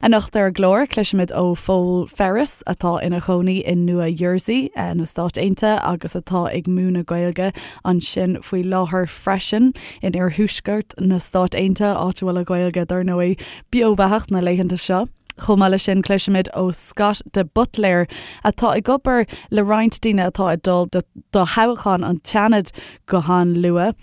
Anocht ar an gclár, cloisfimid ó Phól Ferris, atá ina chónaí i Nua Jersey, na Stáit Aontaithe, agus atá ag múineadh Gaeilge ansin faoi láthair freisin, in iarthuaisceart na Stát Aontaithe, áit a bhfuil an Ghaeilge, dar ndóigh, beo beathach na laethanta seo. Chomh maith leis sin, cloisfimid ó Scott de Buitléir, atá ag obair le roinnt daoine atá ag dul do thoghchán an tSeanaid go han-luath,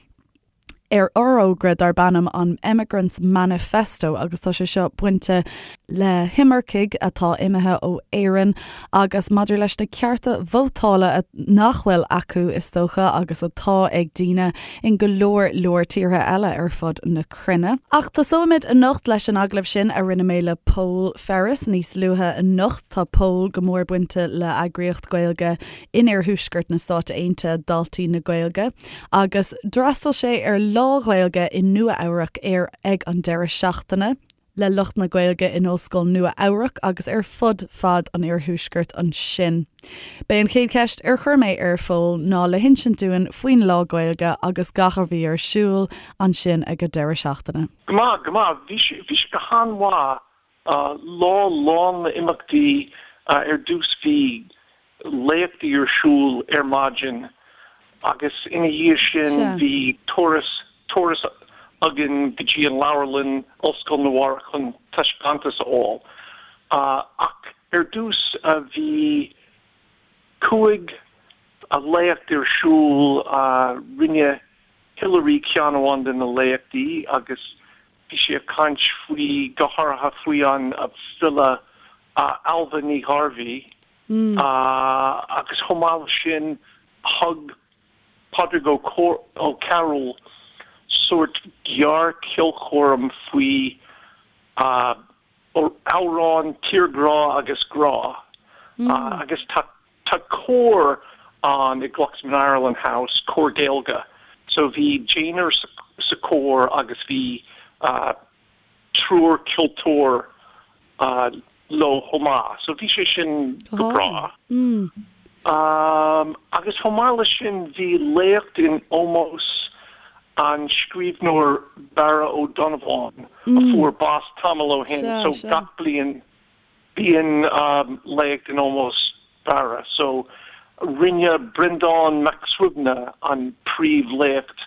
ar fhorógra darb ainm an Emigrants Manifesto agus tá sé seo bainte le himircigh atá imithe ó Éirinn agus maidir leis na cearta vótála nach bhfuil acu, is dócha, agus atá ag daoine in go leor leor tíortha eile ar fud na cruinne. Ach tosóimid anocht leis an agallamh sin a rinne mé le Pól Ferris níos luaithe anocht. Tá Pól go mór bainte le eagraíocht Gaeilge in iarthuaisceart na Stáit Aontaithe, Daltaí na Gaeilge, agus d'fhreastail sé ar Lá Gaeilge i Nua Eabhrac ar ag an deireadh seachtaine le lucht na Gaeilge in Ollscoil Nua Eabhrac agus ar fud fad an iarthuaiscirt ansin. B'é an chéad cheist ar chuir mé ar Phól ná le hinsint dúinn faoin Lá Gaeilge agus gach a bhí ar siúl ansin ag an deireadh seachtaine. Go maith, go maith. Bhí sé, bhí sé go han-mhaith. Lá lán le imeachtaí. Ar dtús bhí léachtaí ar siúl ar maidin agus ina dhiaidh sin bhí turas, turas againn go dtí an leabharlann, Ollscoil Nua Eabhrac chun taispeántas a fháil. Ach ar dtús bhí 5 léacht ar siúl, rinne Hilary ceann amháin de na léachtaí agus bhí sí ag caint faoi, go háirithe faoi an file Ailbhe Ní Ghairbhí. Agus chomh maith leis sin, thug Pádraig Ó Cearúil sórt gearr-cheolchoirm faoi amhráin tírghrá agus grá. Agus tá tá cór ann i Glucksman Ireland House, cór Gaeilge. So bhí deichniúr sa chór agus bhí triúr ceoltóir leo chomh maith. So bhí sé sin go breá. Agus chomh maith leis sin bhí léacht in ómós an scríbhneoir Barra Ó Donnabháin a fuair bás tamall ó shin. So gach bliain bíonn léacht in ómós Barra. So rinne Breandán Mac Suibhne an príomhléacht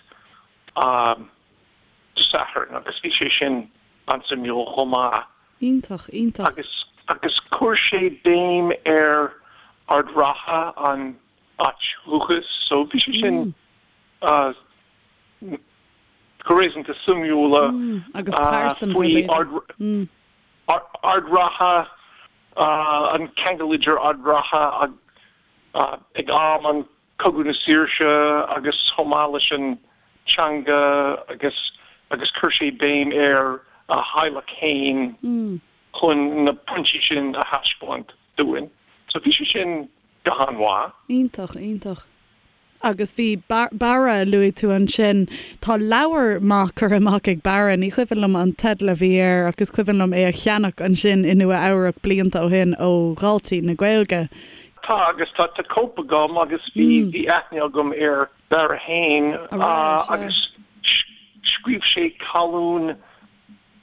Dé Sathairn agus bhí sé sin an-suimiúil chomh maith. Iontach, iontach. Agus, agus chuir sé béim ar Ard Ratha, an áit dhúchais, so bhí sé sin go réasúnta suimiúil Agus pearsanta, faoi b'fhéidir. Ard Ratha, an ceangal idir Ard Ratha ag am an Cogadh na Saoirse agus chomh maith leis an teanga agus agus chuir sé béim ar a theaghlach fhéin chun na pointí sin a thaispeáint dúinn. So bhí sé sin go han-mhaith. Iontach, iontach. Agus bhí Barra, luaigh tú ansin, tá leabhar maith curtha amach ag Barra, ní cuimhin liom an teideal a bhí air ach is cuimhin liom é a cheannach ansin i Nua Eabhrac blianta ó shin ó Dhaltaí na Gaeilge. Tá, agus tá cóip agam agus bhí bhí aithne agam ar Barra fhéin agus scríobh sé colún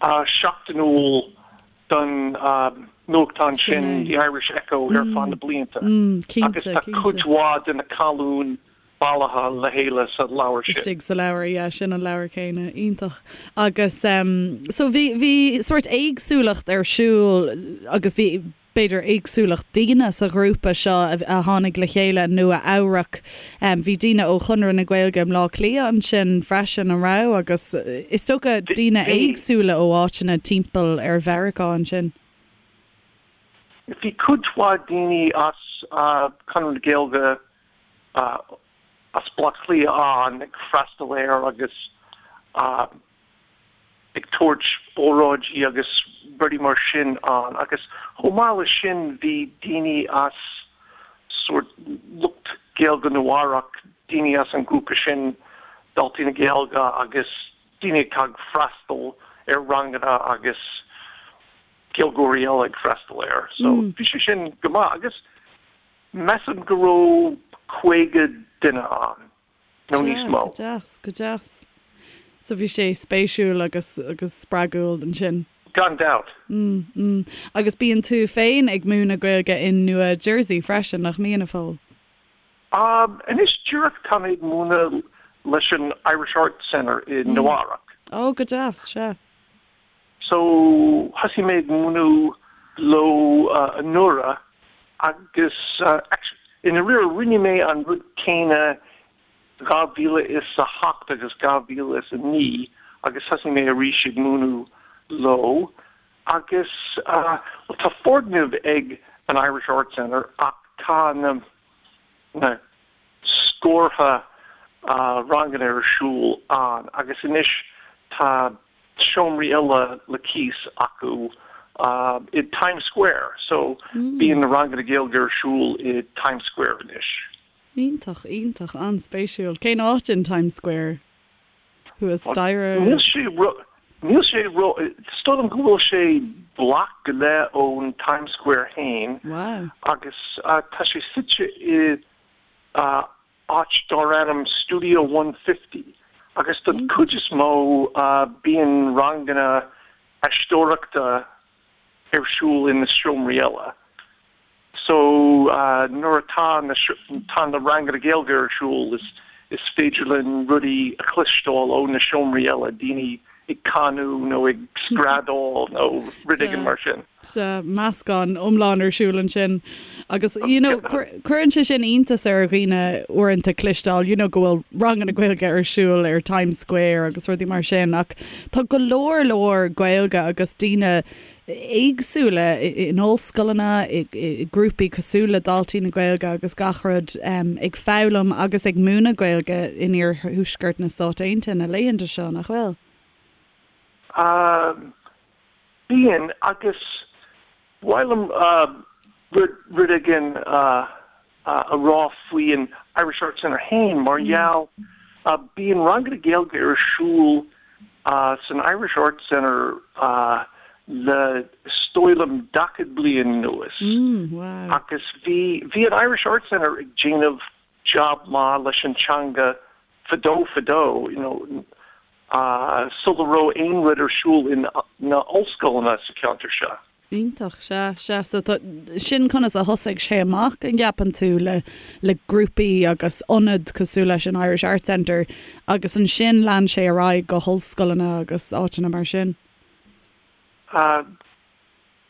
seachtainiúil don nuachtán sin, The Irish Echo, ar feadh na blianta agus tá cuid mhaith de na colúin bailithe le chéile sa leabhar sin. Istigh sa leabhar, yeah, sin an leabhar céanna. Iontach. Agus so bhí bhí sórt éagsúlacht ar siúl agus bhí b'fhéidir, éagsúlacht daoine sa ghrúpa seo a tháinig le chéile i Nua Eabhrac. Bhí daoine ó Chonradh na Gaeilge i mBleá Cliath ansin freisin, an raibh? Agus is dócha daoine éagsúla ó áiteanna timpeall ar Mheiriceá ansin. Bhí cuid mhaith daoine as Conradh na Gaeilge as Baile Átha Cliath ann ag freastal air agus ag tabhairt óráidí agus rudaí mar sin ann agus chomh maith leis sin bhí daoine as sórt lucht Gaeilge Nua Eabhrac, daoine as an grúpa sin Daltaí na Gaeilge agus daoine atá ag freastal ar ranganna agus Gaeilgeoirí eile ag freastal air. So bhí sé sin go maith agus measaim go raibh 50 duine ann. nó níos mó. Go deas, go deas. So bhí sé spéisiúil agus agus spreagúil ansin. Gan dabht. Mm, mm. Agus bíonn tú féin ag múineadh Gaeilge in Nua Jersey freisin, nach mbíonn, a Phóil? Anois díreach tá mé ag múineadh leis an Irish Arts Center i Nua Eabhrac. Ó, go deas, sea. So, thosaigh mé ag múineadh leo anuraidh agus actually i ndáiríre rinne mé an rud céanna 2008 agus 2009 agus thosaigh mé arís ag múineadh leo agus bhuel tá foirgneamh ag an Irish Arts Centre ach tá na na scórtha ranganna ar siúl ann agus anois tá seomraí eile le cíos acu i Times Square so bíonn na ranganna Gaeilge ar siúl i Times Square anois. Iontach, iontach, an-spéisiúil. Cén áit in Times Square? Thuas staighre? Níl sé ró, níl sé ró, is dóigh liom go bhfuil sé bloc go leith ón Times Square fhéin. Wow. Agus tá sé suite i áit dar ainm Studio 150 agus don chuid is mó bíonn ranganna aisteoireachta ar siúl in na seomraí eile. So nuair atá na tá na ranganna Gaeilge ar siúl is is féidir linn rudaí a chloisteáil ó na seomraí eile, daoine ag canadh nó ag screadaíl nó rud éigin mar sin. Sea, meascán iomlán ar siúl ansin. Agus you know cuireann sé sin iontas ar dhaoine uaireanta cloisteáil you know go bhfuil ranganna Gaeilge ar siúl ar Times Square agus rudaí mar sin ach tá go leor leor Gaeilge agus daoine éagsúla in ollscoileanna, i grúpaí cosúil le Daltaí na Gaeilge agus gach rud, ag foghlaim agus ag múineadh Gaeilge in iarthuaisceart na Stát Aontaithe na laethanta seo, nach bhfuil? Bíonn, agus ba mhaith liom rud éigin a rá faoi an Irish Arts Centre féin mar gheall bíonn ranganna Gaeilge ar siúl san Irish Arts Centre le is dóigh liom 40 bliain anuas agus bhí bhí an Irish Arts Centre ag déanamh job maith leis an teanga fadó fadó you know sula raibh aon rud ar siúl in na ollscoileanna sa cheantar seo. Iontach, sea, sea. So tá, sin conas a thosaigh sé amach, an gceapann tú, le, le grúpaí agus ionad cosúil leis an Irish Arts Centre agus ansin lean sé ar aghaidh go hollscoileanna agus áiteanna mar sin?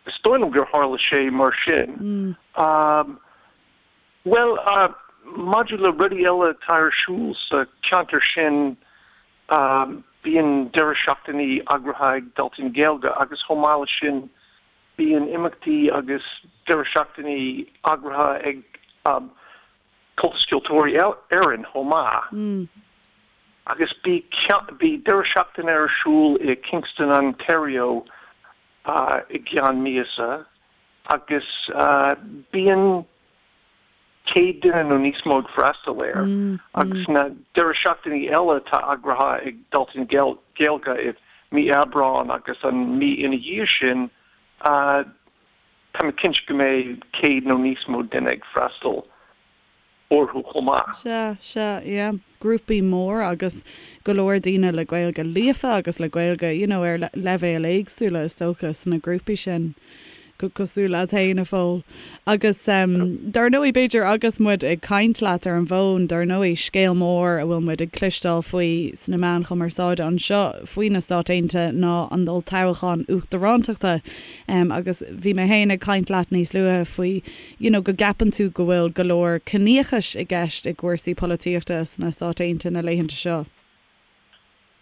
Is dóigh liom gur tharla sé mar sin. Bhuel, maidir le rudaí eile atá ar siúl sa cheantar sin, Bíonn deireadh seachtainí eagraithe ag Daltaí na Gaeilge agus chomh maith leis sin bíonn imeachtaí agus deireadh seachtainí eagraithe ag Comhaltas Ceoltóirí Éireann chomh maith. Agus bhí deireadh seachtaine ar siúl i Kingston, Ontario i gceann míosa agus bíonn 100 duine nó níos mó ag freastal air agus na deireadh seachtainí eile atá eagraithe ag Daltaí na Gaeilge i mí Aibreáin agus an mí ina dhiaidh sin, tá mé cinnte go mbeidh 100 nó níos mó duine ag freastal orthu chomh maith. Sea, sea, yeah. Grúpaí mór agus go leor daoine le Gaeilge líofa agus le Gaeilge, you know, ar leibhéil éagsúla is dócha sna grúpaí sin. cosúil leat féin, a Phóil. Agus dar ndóigh, b'fhéidir agus muid ag caint leat ar an bhfón, dar ndóigh, scéal mór a bhfuil muid ag cloisteáil faoi sna meáin chumarsáide anseo faoi na Stáit Aontaithe ná an olltoghchán uachtarántachta. Agus bhí mé féin ag caint leat níos luaithe faoi, you know, go gceapann tú go bhfuil go leor ciníochais i gceist i gcúrsaí polaitíochta sna Stáit Aontaithe na laethanta seo.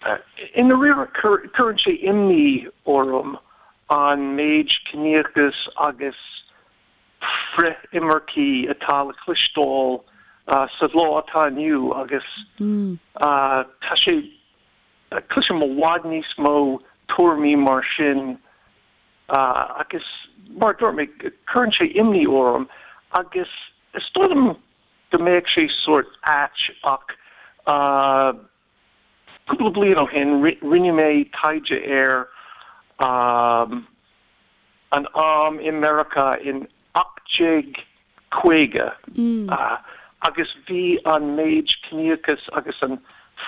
I ndáiríre, cuireann sé imní orm an méid ciníochas agus frith-imircí atá le cloisteáil sa lá atá inniu agus tá sé, cloisim i bhfad níos mó tuairimí mar sin agus mar a dúirt mé, cuireann sé imní orm agus is dóigh liom go mbeadh sé sórt ait ach Cúpla bliain ó shin, rinne mé taighde ar an am i Meiriceá in 1850 agus bhí an méid ciníochas agus an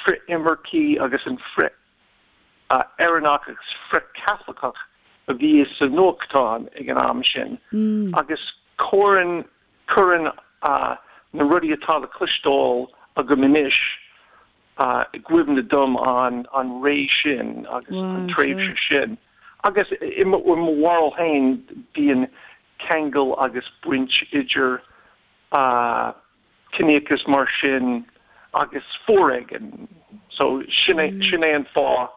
frith-imircí agus an frith-Éireannach agus frith-Chaitliceach. a bhí sa nuachtán ag an am sin agus cuireann cuireann na rudaí atá le cloisteáil agam anois i gcuimhne dom an an ré sin agus an tréimhse sin. Agus i mo bharúil féin bíonn ceangal agus baint idir ciníochas mar sin agus foréigean. So sin é sin é an fáth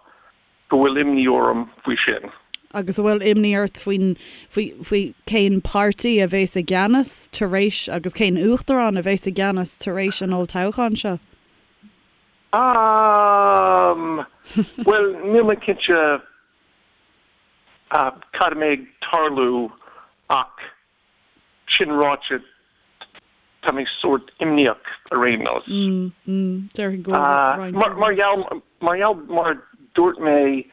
go bhfuil imní orm faoi sin. Agus an bhfuil imní ort faoin faoi faoi cén páirtí a bheas i gceannas tar éis agus cén uachtarán a bheas i gceannas tar éis an olltoghcháin seo? Ahm, bhuel, níl mé cinnte cad a mbeidh ag tarlú ach sin ráite tá mé sórt imníoch ar aon nós. Déarfainn go bhfuil roinnt. Mar gheall, mar gheall, mar dúirt mé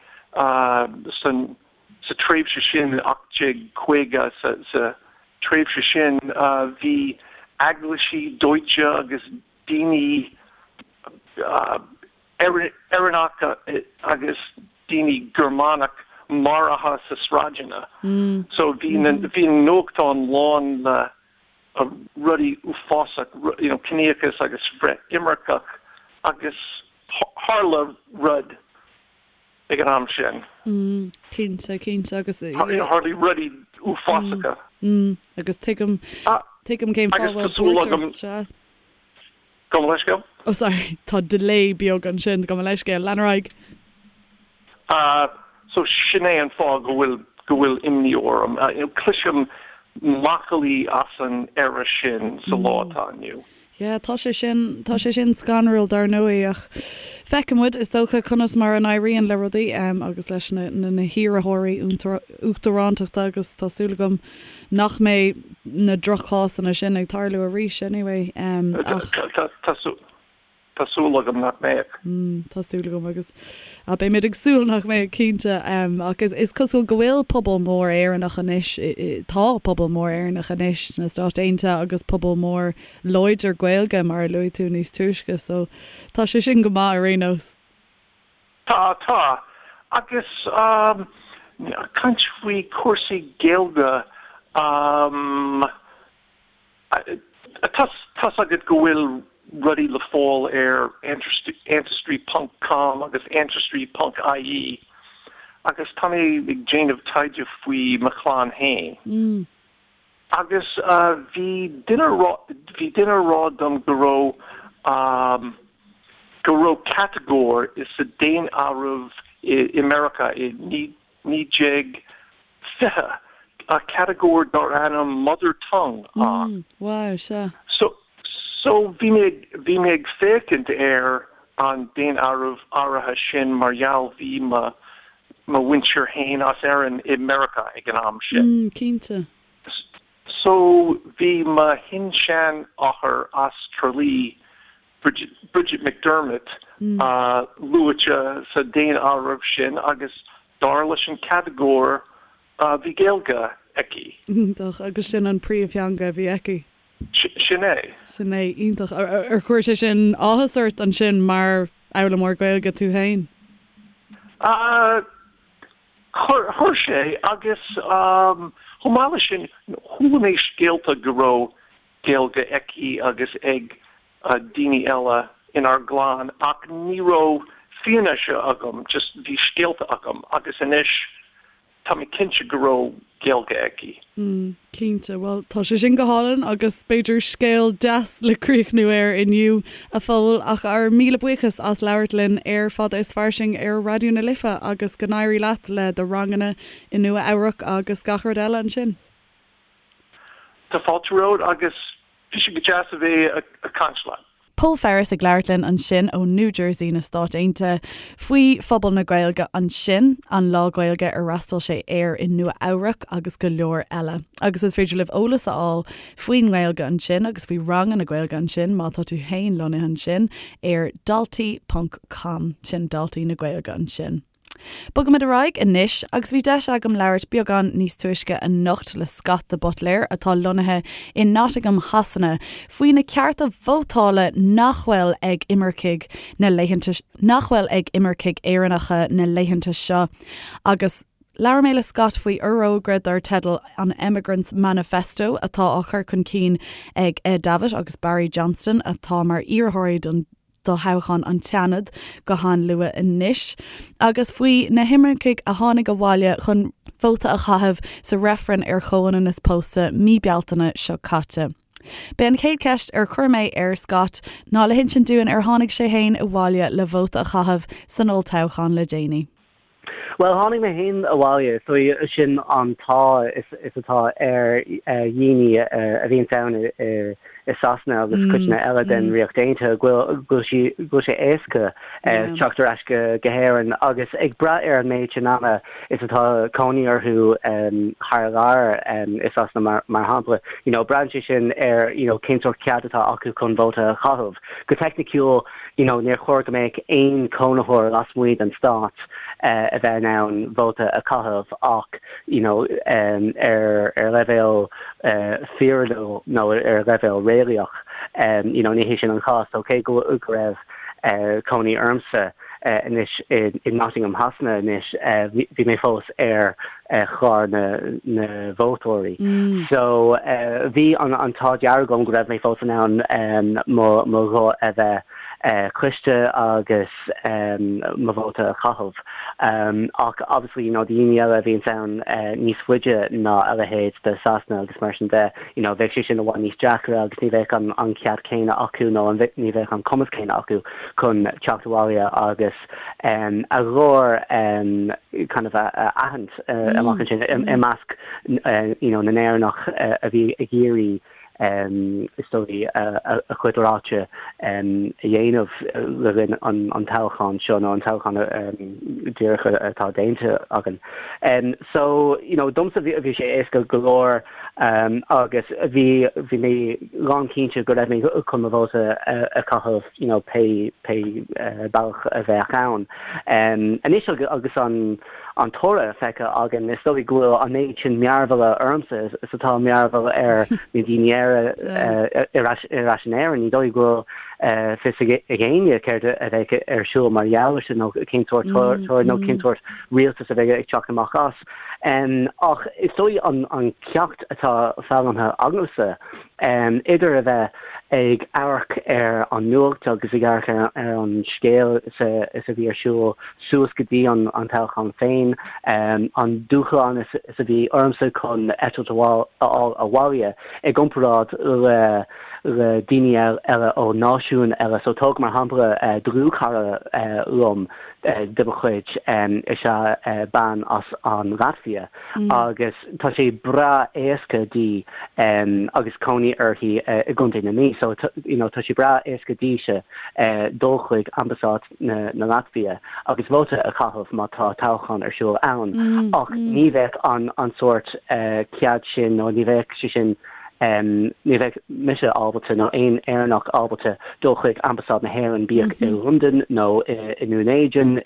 san, sa tréimhse sin, 1850, sa, sa tréimhse sin bhí eaglaisí dóite agus daoine Éireannacha agus daoine Gearmánach maraithe sa sráideanna. So bhí na bhí na nuachtáin lán le rudaí uafásach, you know, ciníochas agus frith-imirceach agus tharla rud ag an am sin. Cinnte, cinnte agus. Tharla rudaí uafásacha. Agus tuigim, tuigim cén fáth a bhfuil buairt ort, sea. Gabh mo leithscéal. Oh sorry, tá delay beag ansin, gabh mo leithscéal, lean ar aghaidh. Ah, so sin é an fáth go bhfuil, go bhfuil imní orm. You know, cloisim macallaí as an era sin sa lá atá inniu. Yeah, tá sé sin, tá sé sin scanrúil dar ndóigh ach feicfidh muid, is dócha, conas mar a n-éiríonn le rudaí agus leis na, na, na hiarrthóirí uachtarántachta agus tá súil agam nach mbeidh na droch-chásanna sin ag tarlú arís anyway ach. Tá súil agam nach mbeidh. Tá súil agam agus beimid ag súil nach mbeidh cinnte ach is cosúil go bhfuil pobal mór Éireannach anois, tá pobal mór Éireannach anois sna Stáit Aontaithe agus pobal mór láidir Gaeilge mar a luaigh tú níos túisce so tá sé sin go maith ar aon nós. Tá, tá. Agus caint faoi chúrsaí Gaeilge, tá's agat go bhfuil rudaí le fáil ar ancestry ponc com agus ancestry ponc ie agus tá mé ag déanamh taighde faoi mo chlann féin. Agus bhí duine bhí duine a rá dom go raibh go raibh catagóir sa daonáireamh i Meiriceá i 1920, catagóir dar ainm mother tongue ann. Wow, sea. So so bhí mé bhí mé ag féachaint ar an daonáireamh áirithe sin mar gheall bhí mo mo mhuintir fhéin as Éirinn i Meiriceá ag an am sin. Mm, cinnte. So bhí mo shin-seanathair as Tralee, Bridget, Bridget McDermott, luaite sa daonáireamh sin agus dar leis an catagóir bhí Gaeilge aici. Iontach, agus sin an príomhtheanga a bhí aici. Sin é. Sin é, iontach. Ar chuir sé sin áthas ort ansin mar fhoghlaimeoir Gaeilge tú féin? Chuir, chuir sé, agus chomh maith leis sin, chuala mé scéalta go raibh Gaeilge aici agus ag daoine eile inár gclann ach ní raibh fianaise agam, just bhí scéalta agam agus anois Tá mé cinnte go raibh Gaeilge aici. Mm, cinnte. Bhuel, tá sé sin go hálainn agus b'fhéidir scéal deas le críochnú air inniu, a Phóil, ach ár míle buíochas as labhairt linn ar Fada is Fairsing ar Raidió na Life agus go n-éirí leat le do ranganna i Nua Eabhrac agus gach rud eile ansin. Tá fáilte romhat agus Bhí sé go deas a bheith ag caint leat. Pól Ferris ag labhairt linn ansin ó New Jersey na Stáit Aontaithe faoi phobal na Gaeilge ansin, an Lá Gaeilge ar fhreastail sé air i Nua Eabhrac agus go leor eile. Agus is féidir libh eolas a fháil faoin nGaeilge ansin agus faoi ranganna Gaeilge ansin má tá tú féin lonnaithe ansin ar daltaí ponc com, sin Daltaí na Gaeilge ansin. Bogaimid ar aghaidh anois agus bhí deis agam labhairt beagán níos túisce anocht le Scott de Buitléir atá lonnaithe i Nottingham Shasana faoi na cearta vótála nach bhfuil ag imircigh na laethanta nach bhfuil ag imircigh Éireannacha na laethanta seo agus. Labhair mé le Scott faoi fhorógra dar teideal an Emigrants Manifesto atá á chur chun cinn ag Ed Davitt agus Barry Johnston atá mar iarrthóirí don do thoghchán an tSeanaid go han-luath anois, agus faoi na himircigh a tháinig abhaile chun vóta a chaitheamh sa reifreann ar chomhionannas pósta mí Bealtaine seo caite. B'é an chéad cheist ar chuir mé ar Scott ná le hinsint dúinn ar tháinig sé féin abhaile le vóta a chaitheamh san olltoghchán le déanaí. Bhuel, tháinig mé féin abhaile, so sin an t-ádh is atá ar dhaoine a bhíonns ann i Sasana agus codanna eile den Ríocht Aontaithe, go bhfuil sé éasca teacht ar ais go hÉirinn agus ag brath ar an méid sin ama is atá cónaí orthu thar lear i Sasana mar shampla, you know, braitheann sé sin ar, you know, cén sórt cead atá acu chun vóta a chaitheamh. Go teicniciúil, you know, níor chóir go mbeadh aon chónaitheoir lasmuigh den stát a bheith in ann vóta a chaitheamh ach, you know, ar ar leibhéal fíorúil nó ar leibhéal réalaíoch, you know, ní hé sin an cás. So cé go go raibh cónaí ormsa anois i Nottingham Shasana anois, bhí mé fós ar chlár na na vótóirí. So bhí an an t-ádh dearg agam go raibh mé fós in ann mo mo ghuth a bheith cloiste agus mo vóta a chaitheamh. Ach obviously you know daoine eile a bhíonns ann níos faide ná a leithéid de Sasana agus mar sin de, you know bheadh sé sin i bhfad níos deacra agus ní bheadh an an cead céanna acu nó an ní bheadh an cumas céanna acu chun teacht abhaile agus a ghlór kind of a aithint amach ansin i measc you know na nÉireannach a bhí ag iarraidh is dóigh a chuid ráite a dhéanamh le linn an toghcháin seo nó an toghchán díreach atá déanta againn. So you know domsa bhí sé éasca go leor agus bhí bhí mé lánchinnte go raibh mé chun mo vóta a chaitheamh you know pé pé bealach a bheadh ann. Anois agus an an toradh feicthe againn, is dóigh go bhfuil an méid sin mearbhalla ormsa is atá mearbhall ar na daoine eile ar ais ar ais in Éirinn. Ní dóigh go bhfuil fios ag éinne céard a bheidh ar siúl mar gheall air sin nó cén sórt toradh nó cén sórt rialtas a bheidh ag teacht amach as. Ach is dóigh an ceacht atá foghlamtha agamsa, idir a bheith ag amharc ar an nuacht agus ag amharc ar an scéal is a bhí ar siúl suas go dtí an toghchán féin, an dúshlán is a bhí ormsa chun eitilt a fháil abhaile i gcomparáid le le daoine eile ó náisiúin eile. So tóg mar shampla dlúthchara liom de mo chuid is ea bean as an Laitvia agus tá sé breá éasca di agus cónaí uirthi i gContae na Mí so you know tá sé breá éasca dise dul chuig ambasáid na na Laitvia agus vóta a chaitheamh má tá toghchán ar siúl ann ach ní bheadh an an sórt cead sin nó ní bheadh sé sin Ní bheadh mise ábalta, nó aon Éireannach ábalta, dul chuig Ambasáid na hÉireann, bíodh i Londain nó i nDún Éideann,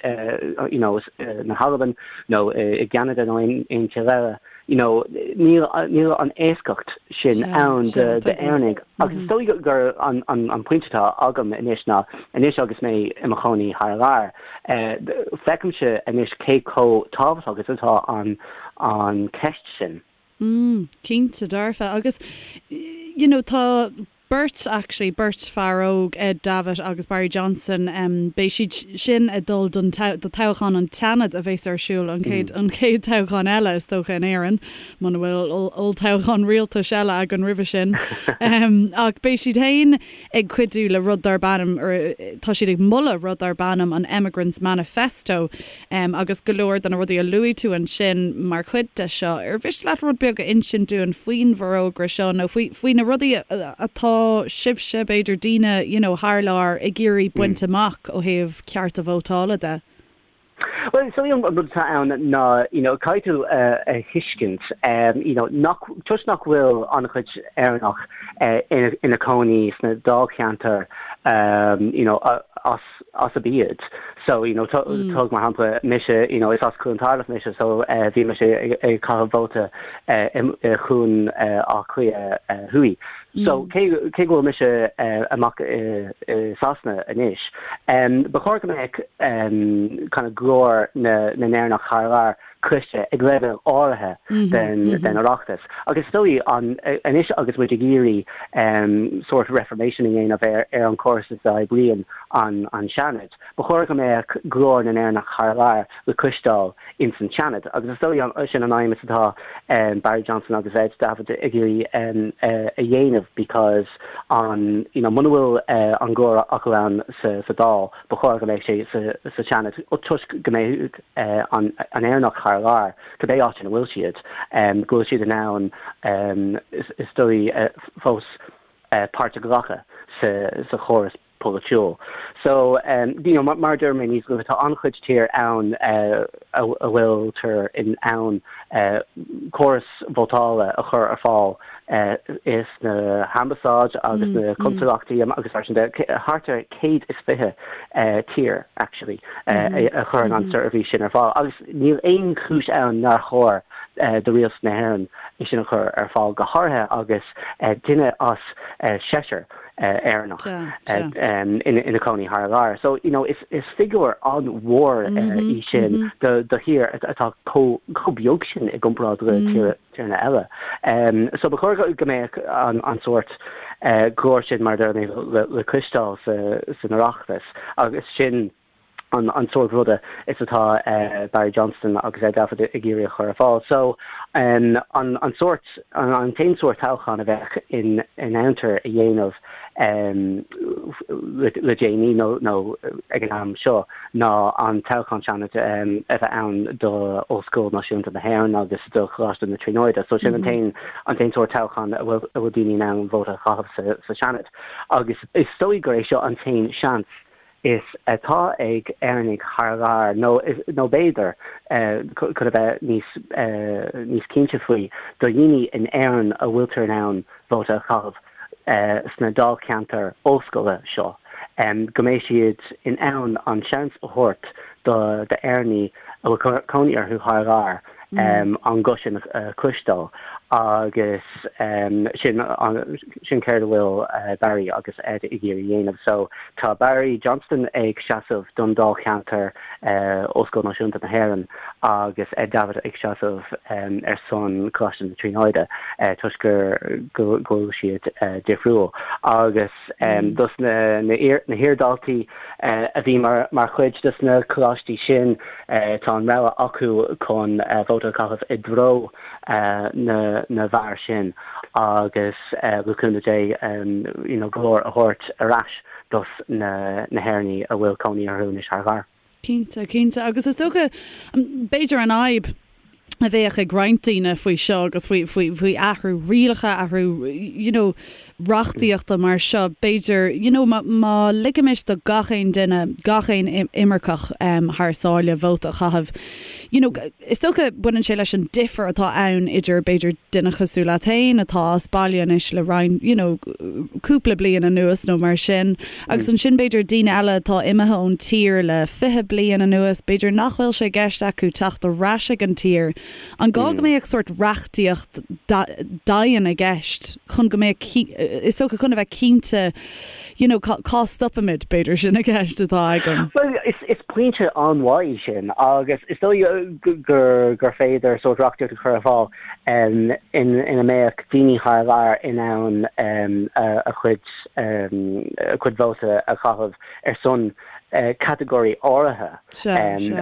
you know, na hAlban, nó i gCeanada nó aon tír eile. You know, níl níl an éascacht sin ann d'Éireannaigh. Agus is dóigh gur an an pointe atá agam anois ná, anois agus mé i mo chónaí thar lear, feicimse anois cé chomh tábhachtach is atá an an cheist sin. Mm, cinnte dearfa. Agus, you know, tá beirt, actually, beirt fear óg, Ed Davitt agus Barry Johnston, em, beidh siad sin ag dul don do toghchán an tSeanaid a bheas ar siúl, an chéad, an chéad toghchán eile, is dócha, in Éirinn, muna bhfuil olltoghchán rialtais eile againn roimhe sin. Em, ach beidh siad féin ag cuidiú le rud darb ainm, or tá siad ag moladh rud darb ainm an Emigrants Manifesto, Agus go leor de na rudaí a luaigh tú ansin mar chuid de seo, ar mhiste leat rud beag a insint dúinn faoin bhforógra seo nó faoi, faoi na rudaí atá sibhse, b'fhéidir daoine, you know, thar lear ag iarraidh baint amach ó thaobh cearta vótála de? Bhuel, is dóigh an rud atá ann ná, you know, caithfidh tú a thuiscint, you know, nach, toisc nach bhfuil an-chuid Éireannach ina cónaí sna dáilcheantair, you know, as, as arb iad. So, you know, tóg mar shampla mise, you know, is as Cluain Tairbh mise, so bhí mise ag caitheamh vóta i Cluain Átha Cliath Thuaidh. So, cé cé go bhfuil mise amach i Sasana anois, ba chóir go mbeadh kind of glór na na nÉireannach thar lear. cloiste ag leibhéal áirithe den Oireachtas. Agus is dóigh an anois agus muid ag iarraidh sórt reformation a dhéanamh ar ar an chóras is a oibríonn an an Seanad, ba chóir go mbeadh glór na nÉireannach thar lear le cloisteáil ins an Seanad. Agus is dóigh sin an aidhm is atá Barry Johnston agus Ed Davitt ag iarraidh a dhéanamh because an you know muna bhfuil an glór acu ann sa sa Dáil, ba chóir go mbeadh sé sa sa Seanad toisc go mbeadh an Éireannach thar lear, cibé áit ina bhfuil siad, go bhfuil siad in ann is dóigh fós páirt a ghlacadh sa chóras polaitiúil. So, you know, mar a dúirt mé níos luaithe, tá an-chuid tír ann a bhfuiltear in ann córas vótála a chur ar fáil sna hambasáid agus na consalachtaí agus mar sin de, thart ar 120 tír actually a chuireann an seirbhís sin ar fáil agus níl aon chúis ann nár chóir do rialtas na hÉireann é sin a chur ar fáil, go háirithe agus duine as seisear Éireannach ina cónaí thar lear. So, you know, is figiúr an-mhór í sin do thír atá chomh beag sin i gcomparáid le tíortha eile. So ba chóir go mbeadh an sórt glór sin, mar a deir mé, le cloisteáil san Oireachtas agus sin an sórt ruda is atá Barry Johnston agus Ed Davitt ag iarraidh a chur ar fáil. So an sórt, an t-aon sórt toghchán a bheadh in ann a dhéanamh le déanaí nó ag an am seo ná an toghchán Seanaid a bheith ann do Ollscoil Náisiúnta na hÉireann agus do Choláiste na Tríonóide. So sin an t-aon an t-aon sórt toghchán a bhfuil a bhfuil daoine in ann vóta a chaitheamh sa Seanad. Agus is dóigh gur é seo an t-aon seans is atá ag Éireannaigh thar lear, nó nó b'fhéidir, chun a bheith níos níos cinnte faoi, do dhaoine in Éirinn a bhfuiltear in ann vóta a chaitheamh sna dáilcheantair ollscoile seo, go mbeidh siad in ann an seans a thabhairt do d'Éireannaigh a bhfuil cónaí orthu thar lear an guth sin a chloisteáil agus sin sin céard a bhfuil Barry agus Ed ag iarraidh a dhéanamh. So tá Barry Johnston ag seasamh don dáilcheantar Ollscoil Náisiúnta na hÉireann agus Ed Davitt ag seasamh ar son Coláiste na Tríonóide toisc gur go bhfuil siad difriúil agus dos na na hiardhaltaí a bhí mar chuid dos na coláistí sin tá an rogha acu chun vóta a chaitheamh i dtreo na na bhfear sin agus le cúnamh Dé you know glór a thabhairt ar ais dos na na hÉireannaigh a bhfuil cónaí orthu anois thar lear. Cinnte, cinnte. Agus is dócha, b'fhéidir an fhadhb a bheadh ag roinnt daoine faoi seo agus faoi, faoi, faoi athrú rialacha, athrú, you know, reachtaíochta mar seo, b'fhéidir, you know, má, má ligimis do gach aon duine, gach aon imirceach thar sáile vóta a chaitheamh, you know, is dócha baineann sé leis an difear atá ann idir, b'fhéidir, duine cosúil leat féin atá as baile anois le roinnt, you know, cúpla bliain anuas nó mar sin, agus ansin b'fhéidir daoine eile atá imithe ón tír le 20 bliain anuas, b'fhéidir nach bhfuil sé i gceist acu teacht ar ais ag an tír. An gá go mbeadh sórt reachtaíocht dian i gceist chun go mbeadh, is dócha chun a bheith cinnte, you know, cá stopaimid, b'fhéidir sin an cheist atá agam. Bhuel, is pointe an-mhaith í sin agus is dóigh gur gur féidir sórt reachtaíocht a chur ar fáil ina mbeadh daoine thar lear in ann a chuid a chuid vóta a chaitheamh ar son catagóirí áirithe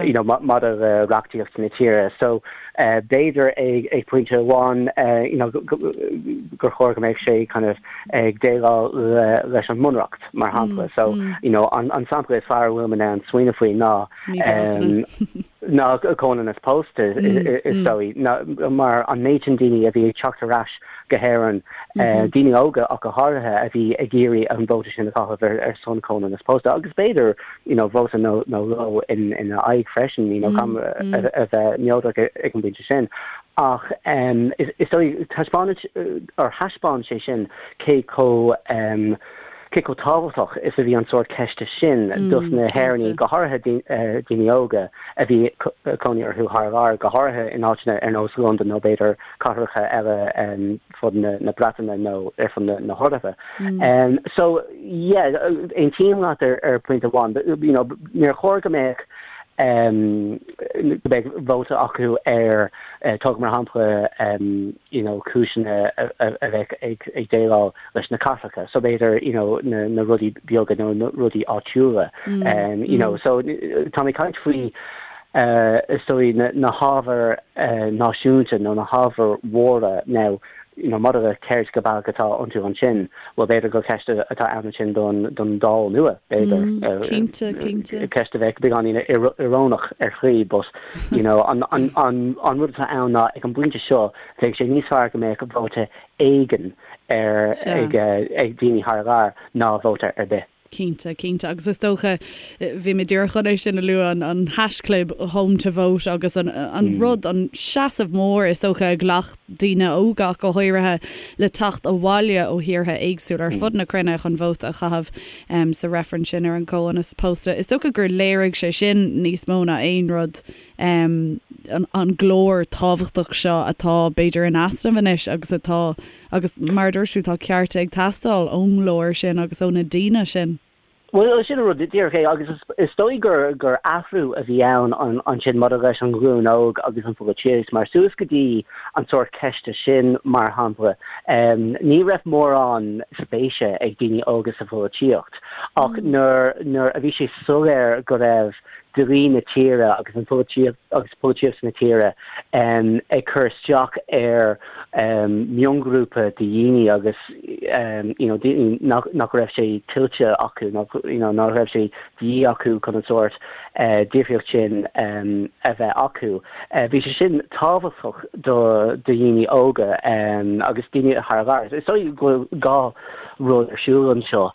you know maidir le reachtaíocht na tíre. So b'fhéidir ag ag pointe amháin you know gur chóir go mbeadh sé kind of ag déileáil le leis an mbunreacht mar shampla. So you know an an sampla is fearr a bhfuil mé in ann smaoineamh faoi ná ná comhionannas pósta is dóigh mar an méid sin daoine a bhí ag teacht ar ais go hÉirinn, daoine óga ach go háirithe, a bhí ag iarraidh an vóta sin a chaitheamh ar son comhionannas pósta agus b'fhéidir you know vóta nó dhó ina aghaidh freisin, you know gan a bheith neodrach ag an bpointe sin. Ach is dóigh taispeánann or thaispeáin sé sin cé chomh cé chomh tábhachtach is a bhí an sórt ceiste sin dos na hÉireannaigh, go háirithe daoine óga a bhí cónaí orthu thar lear, go háirithe in áiteanna ar nós Londain nó b'fhéidir cathracha eile fud na Breataine nó ar fud na hEorpa. So, yeah, aontaím leat ar phointe amháin, you know, níor chóir go mbeadh. Go mbeidh vóta acu ar, tóg mar shampla, you know cúiseanna a bheadh ag déileáil leis na cathracha, so b'fhéidir you know na rudaí beaga nó na rudaí áitiúla, you know. So tá mé ag caint faoi is dóigh na hábhair náisiúnta nó na hábhair mhóra now you know maidir le céard go baileach atá iontu ansin, bhuel b'fhéidir gur ceist atá ann ansin don don Dáil nua, b'fhéidir. Cinnte, cinnte. Ceist a bheadh beagáinín íorónach ar shlí but you know an an an an rud atá ann ná ag an bpointe seo bheadh sé níos fearr go mbeadh vóta éigin ar ag ag daoine thar lear ná vóta ar bith. Cinnte, cinnte. Agus is dócha, bhí mé díreach chun é sin a lua, an haischlib Home to Vote agus an rud, an seasamh mór is dócha a ghlac daoine óga ach go háirithe le teacht abhaile ó thíortha éagsúla ar fud na cruinne chun vóta a chaitheamh sa reifreann sin ar an gcomhionannas pósta. Is dócha gur léirigh sé sin níos mó ná aon rud an glór tábhachtach seo atá b'fhéidir in easnamh anois agus atá Agus mar a dúirt tú, tá cearta ag teastáil ón nglór sin agus ó na daoine sin. Bhuel, sin an rud díreach é agus is dóigh gur gur athrú a bhí ann ansin maidir leis an ghlúin óg agus an pholaitíocht mar suas go dtí an sórt ceiste sin, mar shampla, ní raibh mórán spéise ag daoine óga sa pholaitíocht ach nuair nuair a bhí sé soiléir go raibh dlí na tíre agus an pholaitíocht agus polaitíocht na tíre ag cur isteach ar mhionghrúpa de dhaoine agus you know daoine nach nach raibh sé tuillte acu nach you know nach raibh sé de dhíth acu chun an sórt difríocht sin a bheith acu. Bhí sé sin tábhachtach do do dhaoine óga agus daoine thar lear. Is dóigh go bhfuil dhá rud ar siúl anseo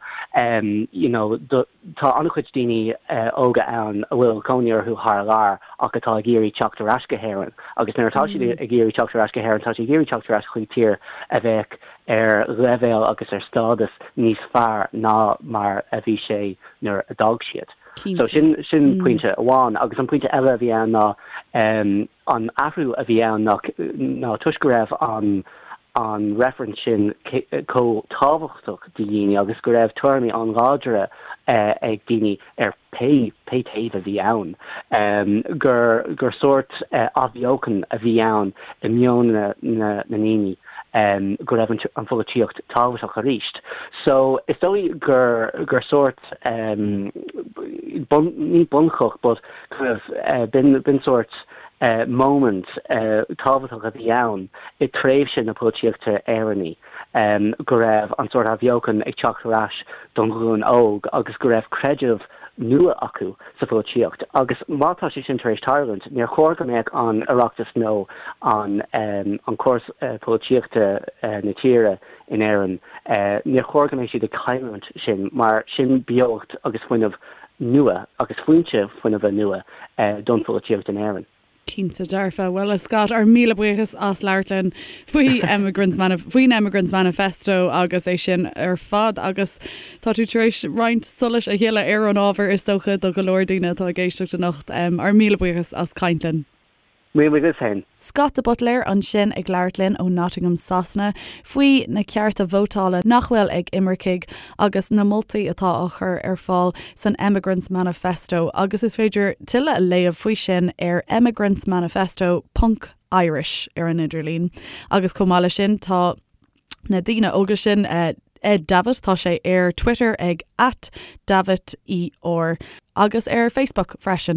you know do Tá an-chuid daoine óga ann a bhfuil cónaí orthu thar lear ach atá ag iarraidh teacht ar ais go hÉirinn agus nuair atá siad ag iarraidh teacht ar ais go hÉirinn, tá siad ag iarraidh teacht ar ais chuig tír a bheadh ar leibhéal agus ar stádas níos fearr ná mar a bhí sé nuair a d'fhág siad. So sin sin pointe amháin agus an pointe eile a bhí ann ná an athrú a bhí ann ná ná toisc go raibh an an reifreann sin chomh tábhachtach do dhaoine agus go raibh tuairimí an-láidre ag daoine ar pé pé taobh a bhí ann, gur gur sórt athbheochan a bhí ann i meon na na ndaoine go raibh an pholaitíocht tábhachtach arís. So is dóigh gur gur sórt bun ní bunchloch but kind of b'in b'in sórt moment tábhachtach a bhí ann i tréimhse na polaitíochta Éireannaí, go raibh an sórt athbheochan ag teacht ar ais don ghlúin óg agus go raibh creideamh nua acu sa pholaitíocht. Agus má tá sé sin tar éis tarlúint, níor chóir go mbeadh an Oireachtas nó an an córas polaitíochta na tíre in Éirinn, níor chóir go mbeadh siad ag cailliúint sin mar sin beocht agus fuinneamh nua agus foinse fuinnimhe nua don pholaitíocht in Éirinn. Cinnte dearfa. Bhuel, a Scott, ár míle buíochas as labhairt linn faoi Emigrants faoin Emigrants Manifesto agus é sin ar fad agus tá tú tar éis roinnt solais a shileadh ar an ábhar is dócha do go leor daoine atá ag éisteacht anocht. Ár míle buíochas as caint linn. Míle buíochas féin. Scott de Buitléir ansin ag labhairt linn ó Nottingham Sasana faoi na cearta vótála nach bhfuil ag imircigh agus na moltaí atá á chur ar fáil san Emigrants Manifesto agus is féidir tuilleadh a léamh faoi sin ar emigrantsmanifesto ponc Irish ar an idirlíon agus chomh maith leis sin tá na daoine óga sin Ed Davitt tá sé ar Twitter ag at Davitt ER agus ar Facebook freisin.